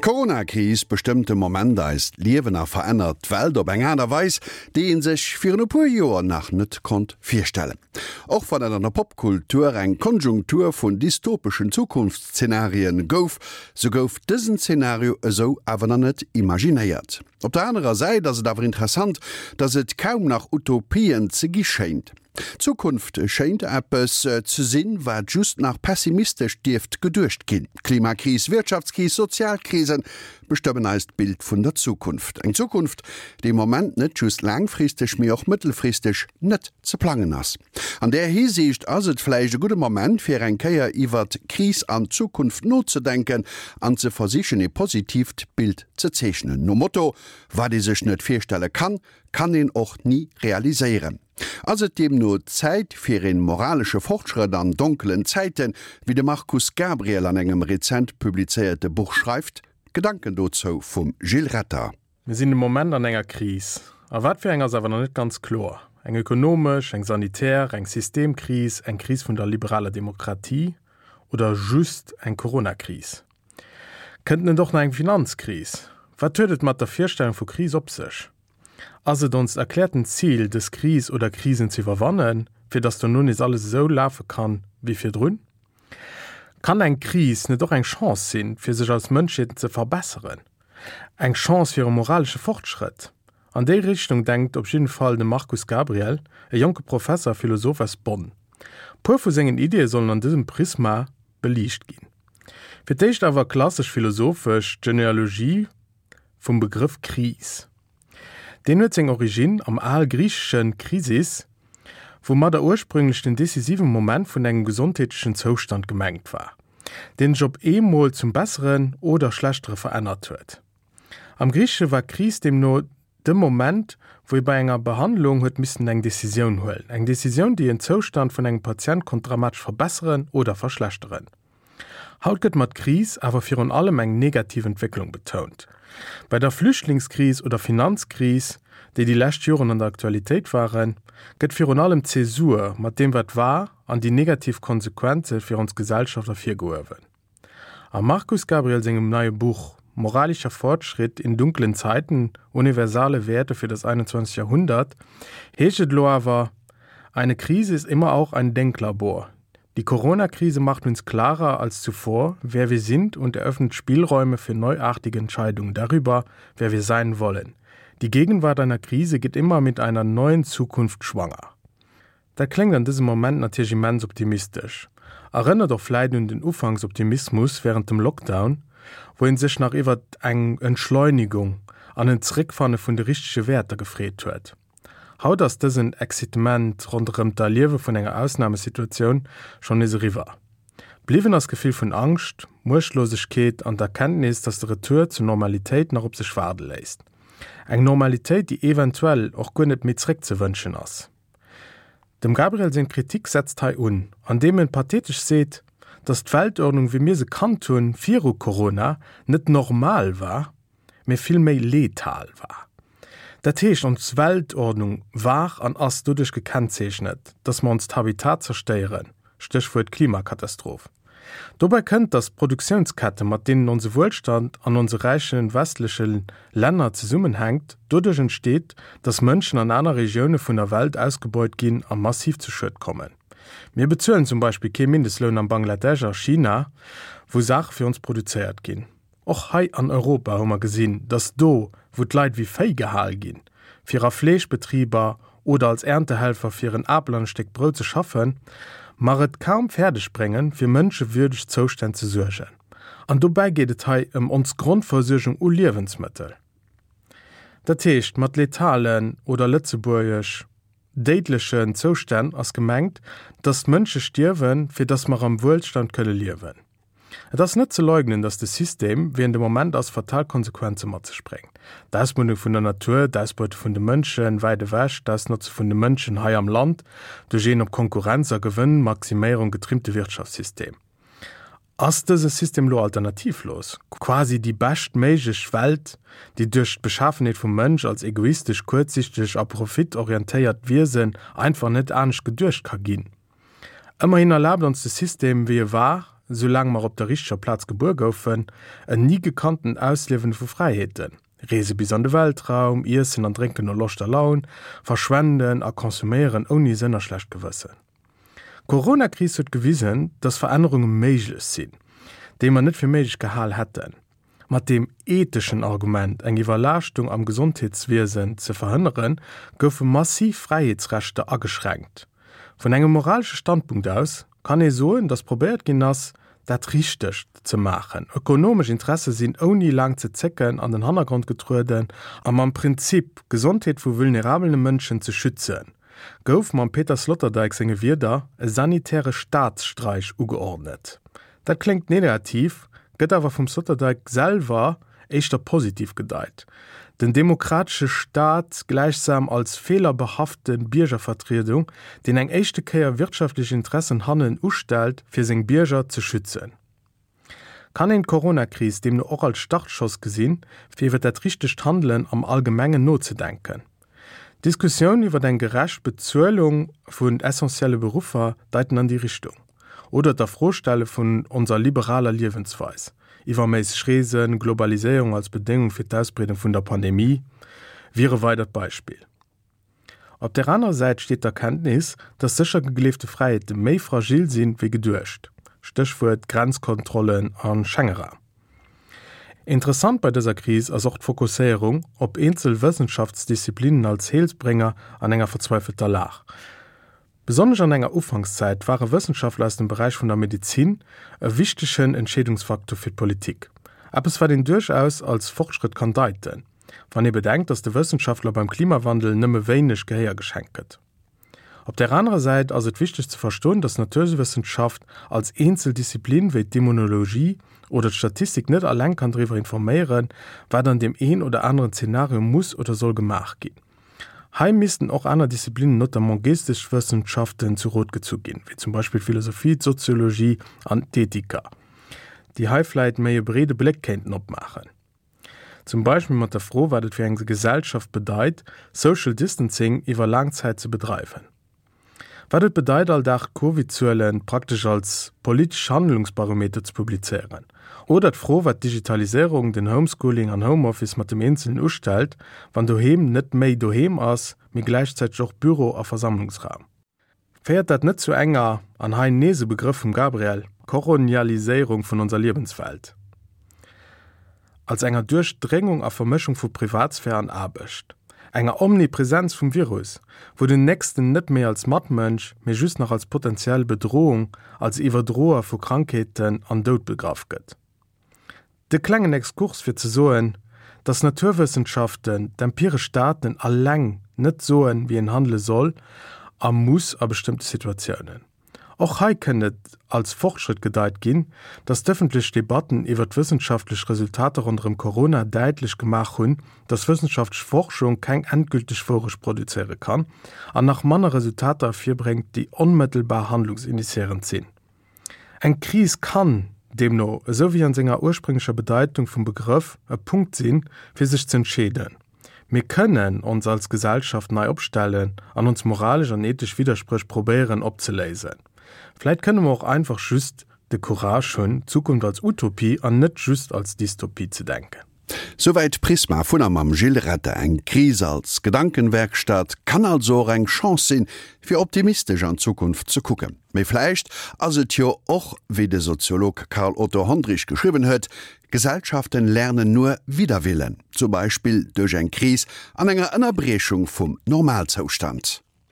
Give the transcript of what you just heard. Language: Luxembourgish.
D'Corona-Kris bestëmmt de Moment eist Liewen a verännert d'Welt op eng Aart a Weis, déi ee sech virun e puer Joer nach net konnt virstellen. Och wann et an der Popkultur eng Konjunktur vun dystopeschen Zukunftsszenarien gouf, sou gouf dësen Zenario esou awer nach net imaginéiert. Op der anerer Säit ass et awer interessant, dass et kaum nach Utopien ze gi schéint. D'Zukunft schéint eppes ze sinn, wat just nach pessimistesch dierft geduecht ginn. Klimakris, Wirtschaftskris, sozial Krisen bestëmmen eist Bild vun der Zukunft. Eng Zukunft, déi am Moment net just laangfristeg, mee och mëttelfristeg net ze plangen ass. An där Hisiicht ass et vläicht e gudde Moment, fir eng Kéier iwwert Kris an Zukunft nozedenken an ze versichen, ee positiivt Bild ze zeechnen. Nom Motto, Wat ee sech net virstelle kann, kann een och ni realiséieren. Ass et deemno Zäit fir een moralesche Fortschrëtt an donkelen Zäiten, wéi de Markus Gabriel an engem rezent publizéierte Buch schreift? Gedanken dozou vum Gilles Retter. Mir sinn de Moment an enger Kris. A wat fir eng ass awer nach net ganz kloer. Eng ökonomesch, eng sanitär, eng Systemkris, eng Kris vun der liberaler Demokratie oder just eng Coronakris? Kënnt net och nach eng Finanzkris? Wat huet et mat der Virstellung vu Kris op sech? Ass et onst erkläerten Zil, dës Kris oder Krisen ze iwwerwannen, fir datt dono nees alles esou lafe kann, wéi virdrun? Kann eng Kris net och eng Chance sinn, fir sech als Mënschheet ze verbesseren? Eng Chance fir e moralesche Fortschrëtt? An déi Richtung denkt op jidden Fall de Markus Gabriel, e jonke Professer a Philosoph aus Bonn. Puer vu sengen Ideeë sollen an dësem Prisma beliicht ginn. Fir d'éischt awer klassesch philosophesch d'Genealogie vum Begrëff Kris. Deen huet seng Originn am al-griichesche Krisis, woumadder ursprünglech den decisive Moment vun engem gesondheetlechen Zoustand gemengt war, deen sech op eemol zum Besseren oder Schlechtere verännert huet. Am Griichesche war Kris deemno de Moment, wou ee bei enger Behandlung huet missen eng Decisioun huelen, eng Decisioun, déi en Zoustand vun engem Patient konnt dramatesch verbesseren oder verschlechteren. Haut gëtt mat Kris awer virun allem eng negativ Entwécklung betount. Bei der Flüchtlingskris oder Finanzkris, déi déi lescht Joren an der Aktualitéit waren, gëtt virun allem d'Zäsur mat deem wat war an déi negativ Konsequenze fir ons Gesellschaft ervirgehuewen. Am Markus Gabriel sengem neie Buch Moralischer Fortschritt in dunklen Zeiten, Universale Werte für das 21. Jahrhundert heescht et elo awer, Eine Krise ist immer auch ein Denklabor. Die Corona-Krise macht uns klarer als zuvor, wer wir sind und eröffnet Spielräume für neuartige Entscheidungen darüber, wer wir sein wollen. Die Gegenwart einer Krise geht immer mit einer neuen Zukunft schwanger. Dat kléngt an dësem Moment natierlech immens optimistesch, erënnert och vläit un den Ufanksoptimismus wärend dem Lockdown, wou een sech nach iwwert eng Entschleunigung an en Zeréckfanne vun de richtege Wäerter gefreet huet. Haut ass dësen Excitement ronderëm d'Erliewe vun enger Ausnamesituatioun schonn nees eriwwer. Bliwwen ass d'Gefill vun Angscht, Muechtlosegkeet an d'Erkenntnis, dass de Retour zur Normalitéit nach op sech waarde léisst. Eng Normalitéit, déi eventuell och guer net méi zeréckzewënschen ass. Dem Gabriel seng Kritik setzt hei un, andeem en pathetesch seet, dass d'Weltordnung wéi mir se kannt hunn viru Corona net normal war, mee vill méi letal war. Dat heescht, ons Weltordnung war an ass doduerch gekennzeechnet, dass mer onst Habitat zerstéieren, Stéchwuert Klimakatastroph. Dobäi kënnt, dass d'Produktiounskette mat deenen onse Wuelstand an onse räiche westleche Länner zesummenhänkt, doduerch entsteet, dass Mënschen an aner Regioune vun der Welt ausgebeut ginn a massiv zu Schued kommen. Mir bezuelen zum Beispill kee Mindestloun am Bangladesch a China, wou Saache fir ons produzéiert ginn. Och hei an Europa hu mer gesinn, dass do, wou d'Leit wéi Véi gehal ginn, fir a Fleeschbetriber oder als Erntehelfer fir en Apel an e Stéck Brout ze schaffen, mer et kaum fäerdeg bréngen, fir mënschewürdeg Zoustänn ze suergen. An dobäi geet et hei ëm ons Grondversuergung u Liewensmëttel. Dat heescht, mat letalen oder lëtzebuergesch déidlechen Zoustänn ass gemengt, dass d'Mënsche stierwen, fir dass mer am Wuelstand kënne liewen. Et ass net ze leugnen, datt de System, wéi en de Moment ass, fatal Konsequenze mat sech bréngt. D'Ausmuddung vun der Natur, d'Ausbeute vun de Mënschen wäit ewech, d'Ausnotze vun de Mënschen hei am Land duerch een op Konkurrenz a Gewënnmaximéierung getrimmte Wirtschaftssystem. Ass dëse System elo alternativlos? Quasi déi bescht méiglech Welt, déi duerch d'Beschafenheet vum Mënsch als egoistesch, kuerzsichteg a profitorientéiert Wiesen einfach net anescht geduecht ka ginn? Ëmmerhin erlaabt ons de System, wéi e war, soulaang mer op der richteger Plaz gebuer goufen, en ni gekanntent Ausliewen vu Fräiheeten, Reese bis an de Weltraum, Iessen an Drénken no Loscht a Laun, verschwenden a konsuméieren ouni Sënn a schlecht Gewëssen. D'Corona-Kris huet gewisen, dass Verännerunge méiglech sinn, déi mer net fir méiglech gehal hätten. Mat deem etheschen Argument, eng Iwwerlaaschtung am Gesondheetswiesen ze verhënneren, goufe massiv Fräiheetsrechter ageschränkt. Vun engem moralesche Standpunkt aus kann ee soen, datt probéiert ginn ass, dat Richtegt ze maachen. Ökonomesch Interesse sinn ouni laang ze zécken an den Hannergrond getrueden a mam Prinzip, d'Gesondheet vu vulnerabele Mënschen ze schützen, gouf mam Peter Sloterdijk senge Wierder e sanitäre Staatsstreich ugeordnet. Dat kléngt negativ, gëtt awer vum Sloterdijk selwer éischter positiv gedeit. Den demokratesche Staat gläichsam als feelerbehafte Biergervertriedung, deen eng éischte Kéier wirtschaftlech Interessen hannen ustellt, fir seng Bierger ze schützen. Kann een d'Coronakris deemno och als Startschoss gesinn, fir iwwer dat richtegt Handelen am Allgemengen nozedenken? D'Diskussioun iwwer eng gerecht Bezuelung vun essentielle Beruffer deiten an déi Richtung. Oder d'Afrostelle vun onser liberaler Liewensweis, iwwerméisseg Reesen, Globaliséierung als Bedéngung fir d'Ausbreedung vun der Pandemie, wier e weidert Beispill. Op där anerer Säit steet d'Erkenntnis, dass sécher gegleefte Fräiheete méi fragil sinn, wéi geduecht, Stéchwuert Grenzkontrollen a Schengeraum. Interessant bei dëser Kris ass och d'Fokusséierung op eenzel Wëssenschaftsdisziplinen als Heelsbrénger an enger verzweifelter Lag. Besonnesch an enger Ufankszäit ware Wëssenschaftler aus dem Beräich vun der Medezin e wichtegen Entscheedungsfaktor fir d'Politik. Eppes wat een duerchaus als Fortschrëtt kann deiten, wann ee bedenkt, datt de Wëssenschaftler beim Klimawandel nëmme wéineg Gehéier geschenkt gëtt. Op där anerer Säit ass et wichteg ze verstoen, dass d'Naturwëssenschaft als eenzel Disziplin wéi d'Immunologie oder d'Statistik net alleng kann driwwer informéieren, wat an deem een oder aneren Zenario muss oder soll gemaach ginn. Hei missten och aner Disziplinen, notamment Geesteswëssenschaften, zu Rot gezu ginn, wéi zum Beispill d'Philosophie, d'Soziologie an d'Ethiker, déi hei vläit méi e breede Bléck kéinten opmaachen. Zum Beispill mat der Fro, wat et fir eng Gesellschaft bedeit, Social Distancing iwwer laang Zäit ze bedreiwen. Wat et bedeit, all Dag d'Covid-Zuele praktesch als politesch Handlungsbarometer ze publizéieren. Oder d'Fro, wat d'Digitaliséierung, den Homeschooling an Homeoffice mat dem Eenzelen ustellt, wann doheem net méi doheem ass, mee gläichzäiteg och Büro a Versammlungsraum. Féiert dat net zu enger, an hei nees e Begrëff vum Gabriel, Koronialiséierung vun onser Liewenswelt? Als enger Duerchdréngung a Vermëschung vu Privatsphär an Aarbecht? Enger Omnipresenz vum Virus, wou den Nächsten net méi als Matmënsch, mee just nach als potentiell Bedrohung, als Iwwerdroer vu Krankheeten an Doud begraff gëtt? De klengen Exkurs fir ze soen, dass Naturwëssenschaften, d'empiresch Daten alleng net soen, wéi een handele soll a muss a bestëmmte Situatiounen. Och hei kënnt et als Fortschrëtt gedeit ginn, dass d'ëffentlech Debatten iwwer d'wëssenschaftlech Resultater ronderëm Corona däitlech gemaach hunn, dass wëssenschaftlech Forschung keng endgülteg Wourecht produzéiere kann an nach manner Resultater ervirbréngt, déi onmëttelbar handlungsinitiéierend sinn. Eng Kris kann deemno, esou wéi an senger ursprünglecher Bedeitung vum Begrëff, e Punkt sinn, fir sech z'entscheeden. Mir kënnen ons als Gesellschaft nei opstellen an ons moralesch an ethesch Widderspréch probéieren opzeléisen. Vläit kënne mer och einfach just de Courage hunn, d'Zukunft als Utopie an net just als Dystopie ze denken. Souwäit Prisma vun a mam Gilles Retter. Eng Kris als Gedankenwerkstatt kann also och eng Chance sinn, fir optimistesch an d'Zukunft ze kucken. Mee vläicht ass et jo och, wéi de Soziolog Karl Otto Hondrich geschriwwen huet, Gesellschaften lernen nur wider Willen, zum Beispill duerch eng Kris an enger Ënnerbriechung vum Normalzoustand.